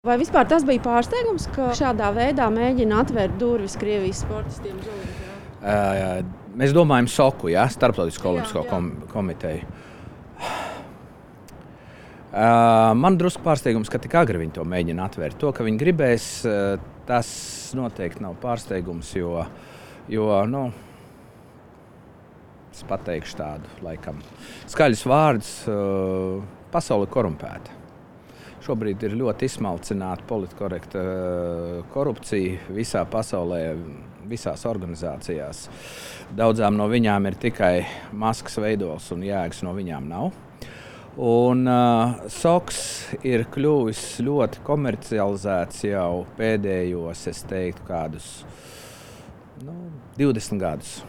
Vai vispār tas bija pārsteigums, ka šādā veidā mēģina atvērt durvis Krievijas sportistiem uz olimpiādu? Mēs domājam SOKU, Starptautisko olimpisko komiteju. Man drusku pārsteigums, ka tik agri viņi to mēģina atvērt. To, ka viņi gribēs, tas noteikti nav pārsteigums, jo es pateikšu tādu, laikam, skaļus vārdus, pasaule ir korumpēta. Šobrīd ir ļoti izsmalcināta politkorekta korupcija visā pasaulē, visās organizācijās. Daudzām no viņām ir tikai maskas veidols un jēgas no viņām nav. Un SOKS ir kļuvis ļoti komercializēts jau pēdējos, es teiktu, kādus 20 gadus.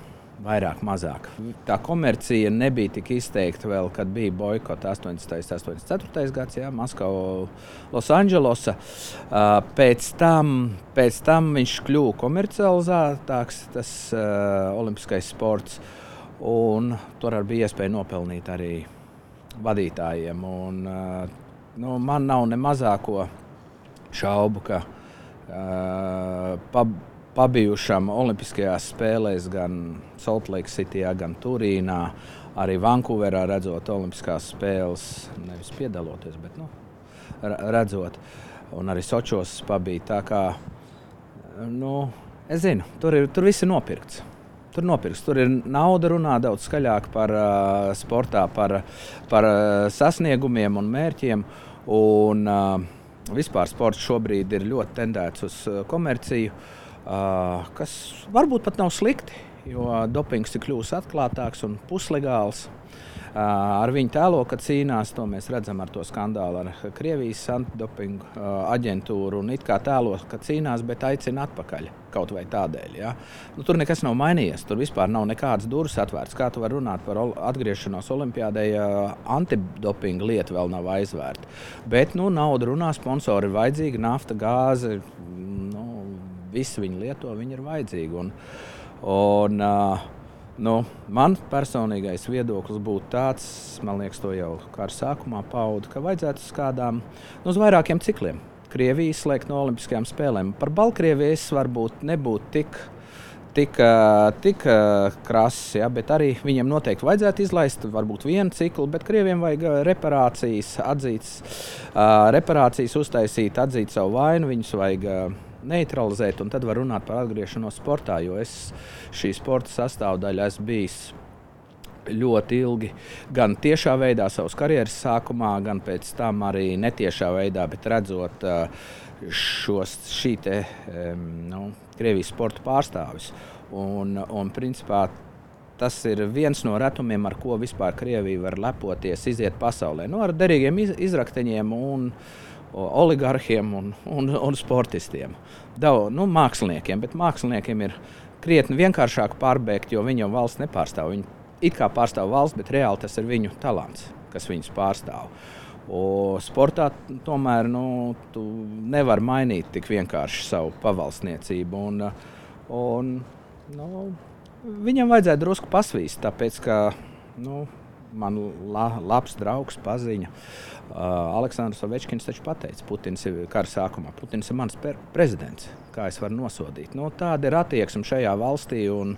Vairāk, mazāk. Tā komercija nebija tik izteikta vēl, kad bija boikota 84. gads, Maskava, Losandželosa. Pēc tam viņš kļuva komercializētāks, tas olimpiskais sports, un tur bija iespēja nopelnīt arī vadītājiem. Un, man nav ne mazāko šaubu, ka pabijušam olimpiskajās spēlēs gan Salt Lake Cityjā, gan Turīnā, arī Vankūverā redzot olimpiskās spēles, nevis piedaloties, bet redzot, un arī Sočos pabija. Tā kā, es zinu, tur viss ir nopirkts. Tur ir nauda, runā daudz skaļāk par sportā, par sasniegumiem un mērķiem, un vispār sports šobrīd ir ļoti tendēts uz komerciju, kas varbūt pat nav slikti, jo dopings ir kļuvis atklātāks un puslegāls. Ar viņu tēlo, ka cīnās, to mēs redzam ar to skandālu ar Krievijas antidopingu aģentūru, un it kā tēlo, ka cīnās, bet aicina atpakaļ kaut vai tādēļ. Ja? Tur nekas nav mainījies, tur vispār nav nekādas durvis atvērts. Kā tu vari runāt par atgriešanos olimpiādē, ja antidopinga lieta vēl nav aizvērta. Bet nauda runā, sponsori ir vajadzīgi, nafta, gāze, visi viņi lieto, viņi ir vajadzīgi. Man personīgais viedoklis būtu tāds, man liekas, to jau kā ar sākumā paudu, ka vajadzētu uz kādām, uz vairākiem cikliem Krieviju izslēgt no olimpiskajām spēlēm. Par Baltkrieviju es varbūt nebūtu tik krass, bet arī viņiem noteikti vajadzētu izlaist varbūt vienu ciklu, bet Krieviem vajag reparācijas uztaisīt, atzīt savu vainu, viņus vajag neutralizēt, un tad var runāt par atgriešanos sportā, jo es šī sporta sastāvdaļa esmu bijis ļoti ilgi, gan tiešā veidā savas karjeras sākumā, gan pēc tam arī netiešā veidā, bet redzot Krievijas sporta pārstāvis. Un principā tas ir viens no retumiem, ar ko vispār Krievija var lepoties, iziet pasaulē. Ar derīgiem izrakteņiem un oligarhiem un sportistiem. Māksliniekiem, bet māksliniekiem ir krietni vienkāršāk pārbēgt, jo viņi jau valsts nepārstāv. Viņi it kā pārstāv valsts, bet reāli tas ir viņu talants, kas viņus pārstāv. Sportā tomēr tu nevari mainīt tik vienkārši savu pavalsniecību. Viņam vajadzētu drusku pasvīst, tāpēc ka man labs draugs paziņa. Aleksandrs Ovečkins taču pateica, Putins ir kara sākumā. Putins ir mans prezidents, kā es varu nosodīt. Tāda ir attieksme šajā valstī, un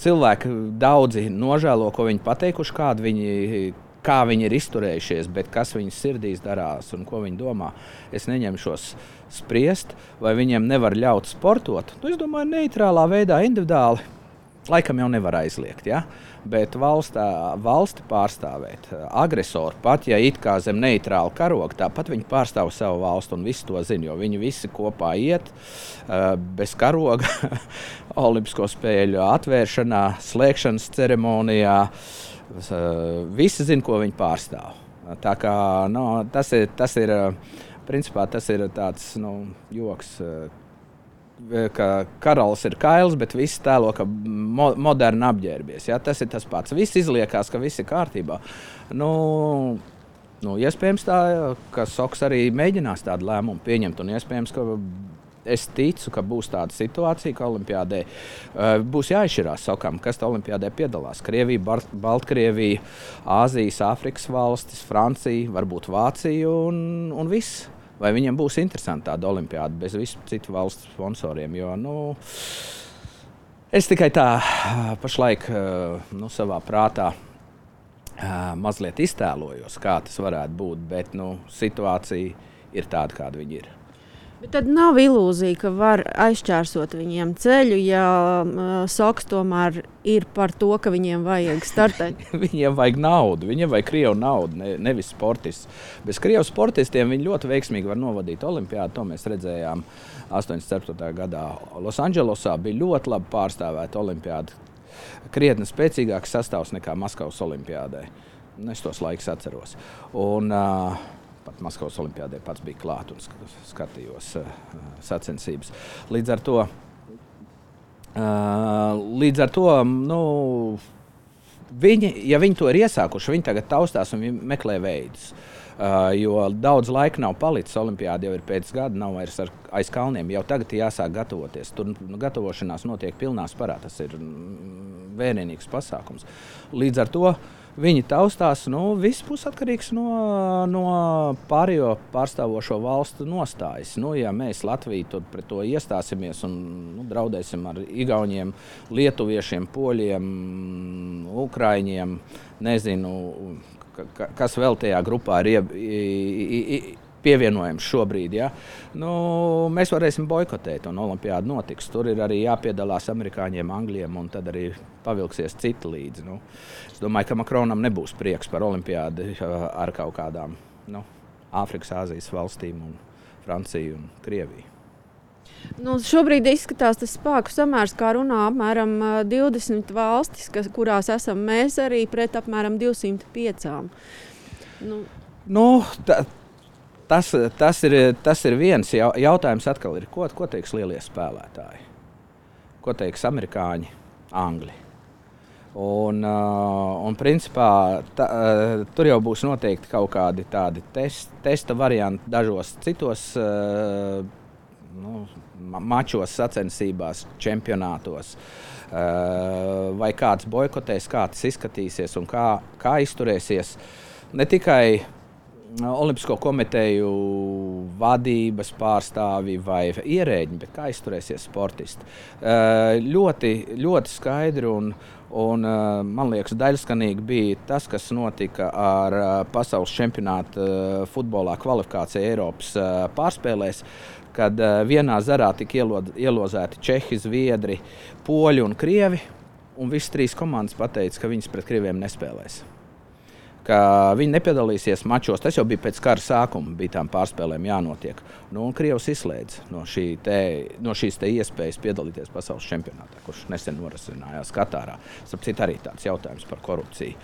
cilvēki daudzi nožēlo, ko viņi pateikuši, kā viņi ir izturējušies, bet kas viņu sirdīs darās un ko viņi domā. Es neņemšos spriest, vai viņiem nevar ļaut sportot. Es domāju, neitrālā veidā, individuāli. Laikam jau nevar aizliegt, bet valsti pārstāvēt agresoru, pat ja it kā zem neitrāla karoga, tāpat viņi pārstāv savu valstu un visi to zina, jo viņi visi kopā iet bez karoga olimpisko spēļu atvēršanā, slēgšanas ceremonijā. Visi zina, ko viņi pārstāv. Tā kā tas ir principā tas ir tāds joks, ka karalis ir kails, bet visi tēlo, ka moderni apģērbies. Tas ir tas pats. Viss izliekās, ka viss ir kārtībā. Iespējams tā, ka SOKS arī mēģinās tādu lēmumu pieņemt, un iespējams, ka es ticu, ka būs tāda situācija, ka olimpiādē būs jāizšķirās sakām, kas tā olimpiādē piedalās. Krievija, Baltkrievija, Āzijas, Āfrikas valstis, Francija, varbūt Vācija un viss. Vai viņiem būs interesanti tāda olimpiāda bez visu citu valstu sponsoriem, jo, es tikai tā pašlaik savā prātā mazliet iztēlojos, kā tas varētu būt, bet situācija ir tāda, kāda viņa ir. Bet tad nav ilūzija, ka var aizšķērsot viņiem ceļu, ja Soks tomēr ir par to, ka viņiem vajag startēt. Viņiem vajag naudu, viņiem vajag krievu naudu, nevis sportistus. Bez krievu sportistiem viņi ļoti veiksmīgi var novadīt olimpiādu. To mēs redzējām 84. gadā. Losandželosā bija ļoti labi pārstāvēta olimpiāda. Krietni spēcīgāks sastāvs nekā Maskavas olimpiādē. Es tos laikus atceros. Un pat Maskavas olimpiādē pats bija klāt un skatījos sacensības. Līdz ar to ja viņi to ir iesākuši, viņi tagad taustās un meklē veidus. Jo daudz laika nav palicis, olimpiāda jau ir pēc gada, nav vairs aiz kalniem. Jau tagad jāsāk gatavoties. Tur gatavošanās notiek pilnā sparā. Tas ir vērienīgs pasākums. Līdz ar to viņi taustās, viss būs atkarīgs no pārējo pārstāvošo valstu nostājas. Ja mēs Latviju pret to iestāsimies un draudēsim ar igauņiem, lietuviešiem, poļiem, ukraiņiem, nezinu, kas vēl tajā grupā ir pievienojams šobrīd, ja? Mēs varēsim boikotēt un olimpiāda notiks. Tur ir arī jāpiedalās amerikāņiem, angļiem un tad arī pavilksies citi līdzi. Es domāju, ka Makronam nebūs prieks par olimpiādu ar kaut kādām Āfrikas, Āzijas valstīm un Franciju un Krieviju. Šobrīd izskatās tas spēku samērs, kā runā apmēram 20 valstis, kurās esam mēs arī pret apmēram 205. Tas ir viens jautājums atkal ir, ko teiks lielie spēlētāji? Ko teiks amerikāņi, angļi? Un principā tur jau būs noteikti kaut kādi tādi testa varianti dažos citos mačos, sacensībās, čempionātos. Vai kāds boikotēs, kā tas izskatīsies un kā izturēsies. Ne tikai Olimpisko komiteju vadības pārstāvi vai ierēģi, bet kā izturēsies sportisti. Ļoti, ļoti skaidri un man liekas, daļskanīgi bija tas, kas notika ar pasaules čempionātu futbolā kvalifikācija Eiropas pārspēlēs, kad vienā zarā tika ielozēti Čehi, Zviedri, Poļi un Krievi, un visas trīs komandas pateica, ka viņas pret Krieviem nespēlēs. Ka viņi nepiedalīsies mačos. Tas jau bija pēc kara sākuma, bija tām pārspēlēm jānotiek. Un Krievs izslēdz no šīs iespējas piedalīties pasaules čempionātā, kurš nesen norisinājās Katārā. Starp citu arī tāds jautājums par korupciju,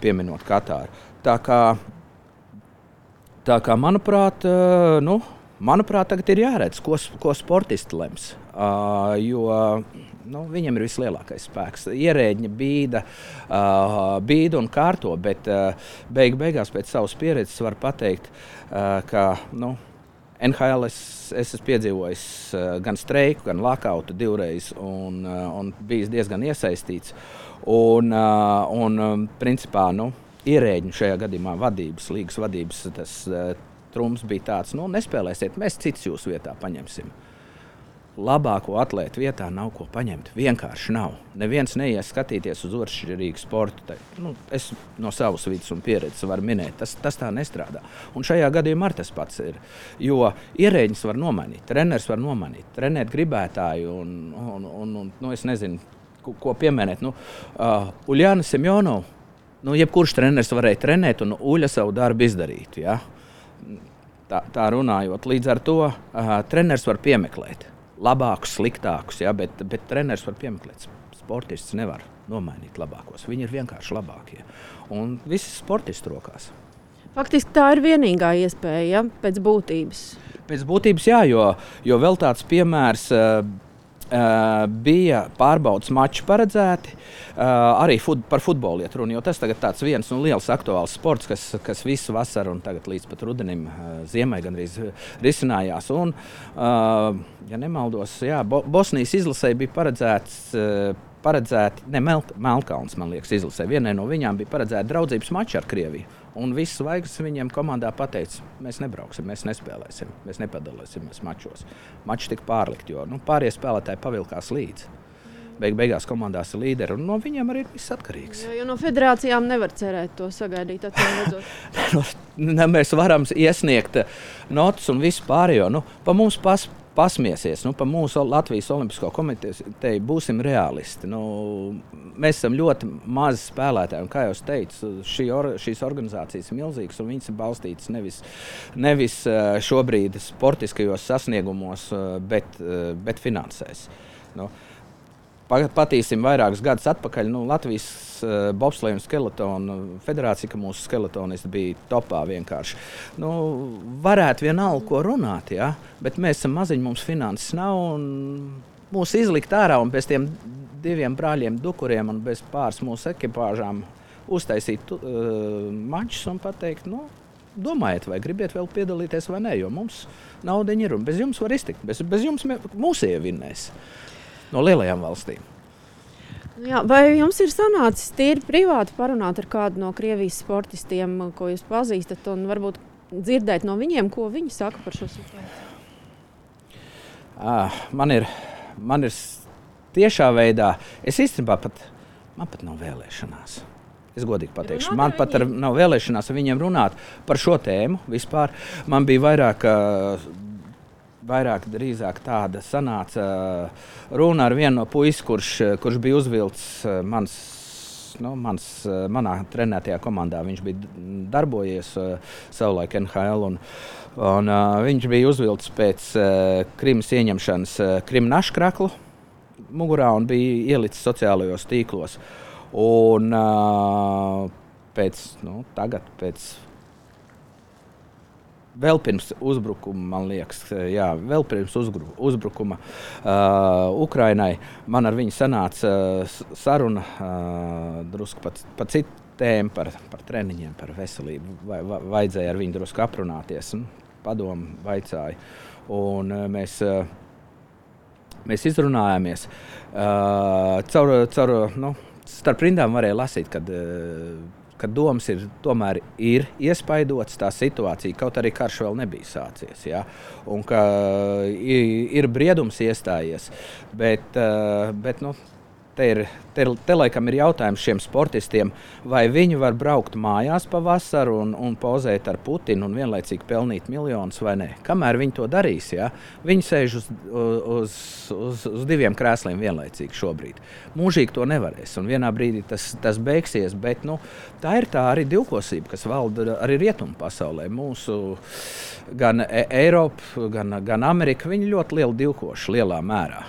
pieminot Katāru. Tā kā manuprāt, tagad ir jāredz, ko sportisti lems, jo viņam ir vislielākais spēks. Ierēģi bīda un kārto, bet beigās pēc savas pieredzes var pateikt, ka NHL es esmu piedzīvojis gan streiku, gan lakautu divreiz un bijis diezgan iesaistīts. Principā, ierēģi šajā gadījumā līgas vadības, tas trumps bija tāds, nespēlēsiet, mēs cits jūsu vietā paņemsim. Labāko atlētu vietā nav ko paņemt. Vienkārši nav. Neviens neies skatīties uz otršķirīgu sportu. Es no savas vidas un pieredzes varu minēt. Tas tā nestrādā. Un šajā gadījumā tas pats ir. Jo ierēģis var nomainīt, treneris var nomainīt, trenēt gribētāju un es nezinu, ko pieminēt. Uljāna Semjonova, jebkurš treneris varēja trenēt un Uļa savu darbu izdarīt. Ja? Tā runājot. Līdz ar to treneris var piemeklēt. Labākus, sliktākus, bet treneris var piemeklēt. Sportists nevar nomainīt labākos. Viņi ir vienkārši labākie. Un visi sportisti rokās. Faktiski tā ir vienīgā iespēja, pēc būtības. Pēc būtības, jā, jo vēl tāds piemērs bija pārbaudas mači paredzēti, arī par futbolu iet runa, jo tas tagad tāds viens liels aktuāls sports, kas visu vasaru un tagad līdz pat rudenim, ziemai gandrīz risinājās. Un, ja nemaldos, Bosnijas izlasē bija paredzēti, Melnkalns, man liekas, izlasē. Vienai no viņām bija paredzēta draudzības mači ar Krieviju. Un viss zvaigznes viņiem komandā pateica, mēs nebrauksim, mēs nespēlēsim, mēs nepadalīsimies mačos. Mači tika pārlikt, jo pārējie spēlētāji pavilkās līdzi. Beigās komandās ir līderi, un no viņiem arī ir viss atkarīgs. Jo no federācijām nevar cerēt to sagaidīt, Mēs varam iesniegt notas un visu pārējo. Pa mums pasmiesies, pa mūsu Latvijas Olimpisko komiteju būsim realisti. Mēs esam ļoti mazi spēlētāji, un kā jau teicu, šīs organizācijas ir milzīgas, un viņas ir balstītas nevis šobrīd sportiskajos sasniegumos, bet finansēs. Patīsim vairākus gadus atpakaļ. Latvijas bobsleja un skeletonu federācija, ka mūsu skeletonisti bija topā vienkārši. Varētu vienalga, ko runāt, bet mēs esam maziņi, mums finanses nav, un mūs izlikt ārā un bez tiem 2 brāļiem Dukuriem un bez pāris mūsu ekipāžām uztaisīt mačus un pateikt, domājiet, vai gribiet vēl piedalīties vai nē, jo mums naudiņa ir un bez jums var iztikt, bez jums mūs ievinnēs. No lielajām valstīm. Jā, vai jums ir sanācis tīri privāti parunāt ar kādu no Krievijas sportistiem, ko jūs pazīstat, un varbūt dzirdēt no viņiem, ko viņi saka par šo situāciju? Man ir tiešā veidā, es īstenībā man pat nav vēlēšanās. Es godīgi pateikšu, man pat nav vēlēšanās ar viņiem runāt par šo tēmu vispār. Man bija vairāk drīzāk tāda sanāca runa ar vienu no puisi, kurš bija uzvilcis manā trenētajā komandā. Viņš bija darbojies savulaik NHL, un viņš bija uzvilcis pēc Krimas ieņemšanas Krima naškraklu mugurā un bija ielicis sociālajos tīklos. Un vēl pirms uzbrukuma, man liekas, vēl pirms uzbrukuma Ukrainai, man ar viņu sanāca saruna drusku pa citu tēmu, par treniņiem, par veselību. Vajadzēja ar viņu drusku aprunāties, padomu vaicāja. Un mēs izrunājāmies. Starp rindām varēja lasīt, ka domas tomēr ir iespaidotas tā situācija, kaut arī karš vēl nebija sācies. Ja? Un ka ir briedums iestājies, bet te laikam ir jautājums šiem sportistiem, vai viņi var braukt mājās pa vasaru un pozēt ar Putinu un vienlaicīgi pelnīt miljonus vai nē. Kamēr viņi to darīs, viņi sēž uz 2 krēsliem vienlaicīgi šobrīd. Mūžīgi to nevarēs, un vienā brīdī tas beigsies, bet tā ir tā arī divkosība, kas valda arī rietumu pasaulē. Mūsu gan Eiropa, gan Amerika, viņi ļoti lieli divkoši lielā mērā.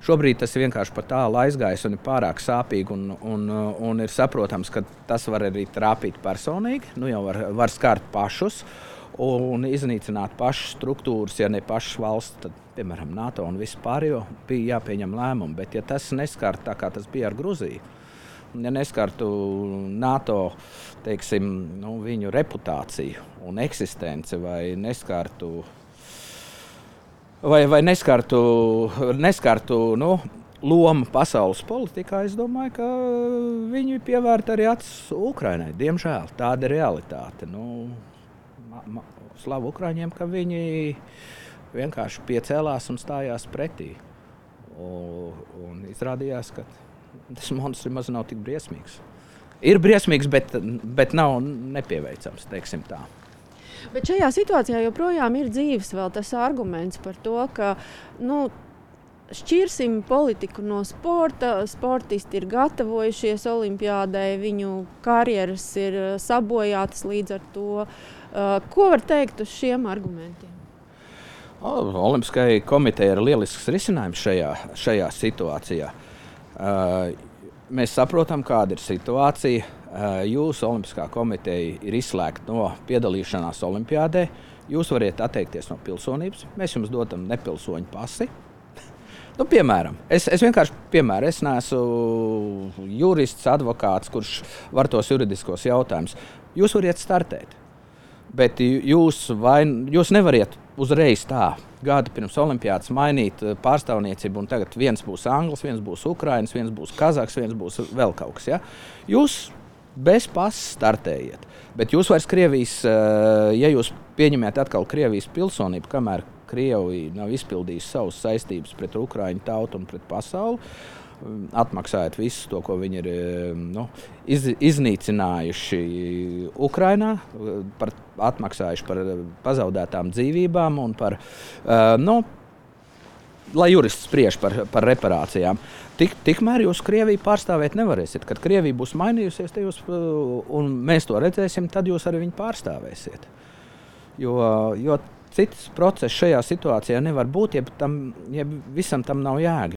Šobrīd tas vienkārši par tālu aizgājis un ir pārāk sāpīgi, un ir saprotams, ka tas var arī trāpīt personīgi. Jau var skart pašus un iznīcināt pašas struktūras, ja ne pašas valsts, tad, piemēram, NATO un visu pārējo bija jāpieņem lēmumu. Bet ja tas neskart tā, kā tas bija ar Gruziju, ja neskartu NATO, teiksim, viņu reputāciju un eksistenci vai neskartu lomu pasaules politikā, es domāju, ka viņi pievērta arī acis Ukrainai. Diemžēl tāda ir realitāte. Slavu Ukraiņiem, ka viņi vienkārši piecēlās un stājās pretī. Un izrādījās, ka tas monstrs maz nav tik briesmīgs. Ir briesmīgs, bet nav nepieveicams, teiksim tā. Bet šajā situācijā joprojām ir dzīves vēl tas arguments par to, ka šķirsim politiku no sporta, sportisti ir gatavojušies olimpiādai, viņu karjeras ir sabojātas līdz ar to. Ko var teikt uz šiem argumentiem? Olimpiskajai komitejai ir lielisks risinājums šajā situācijā. Mēs saprotam, kāda ir situācija. Jūsu Olimpiskā komiteja ir izslēgta no piedalīšanās olimpiādē. Jūs varat atteikties no pilsonības. Mēs jums dodam nepilsoņu pasi. Nu, piemēram, es neesmu jurists, advokāts, kurš var tos juridiskos jautājumus. Jūs variet startēt, bet jūs nevariet uzreiz tā gadu pirms olimpiādas mainīt pārstāvniecību, un tagad viens būs Anglis, viens būs Ukrainas, viens būs Kazahs, viens būs vēl kaut kas. Ja? Jūs bez pasas startējiet, bet jūs vairs Krievijas, ja jūs pieņemiet atkal Krievijas pilsonību, kamēr Krievija nav izpildījusi savas saistības pret Ukraiņu tautu un pret pasauli, atmaksājot visu to, ko viņi ir iznīcinājuši Ukrainā, atmaksājuši par pazaudētām dzīvībām un par, lai jurists spriež par reparācijām. Tikmēr jūs Krieviju pārstāvēt nevarēsiet. Kad Krievija būs mainījusies, un mēs to redzēsim, tad jūs arī viņu pārstāvēsiet. Jo cits process šajā situācijā nevar būt, ja visam tam nav jēga.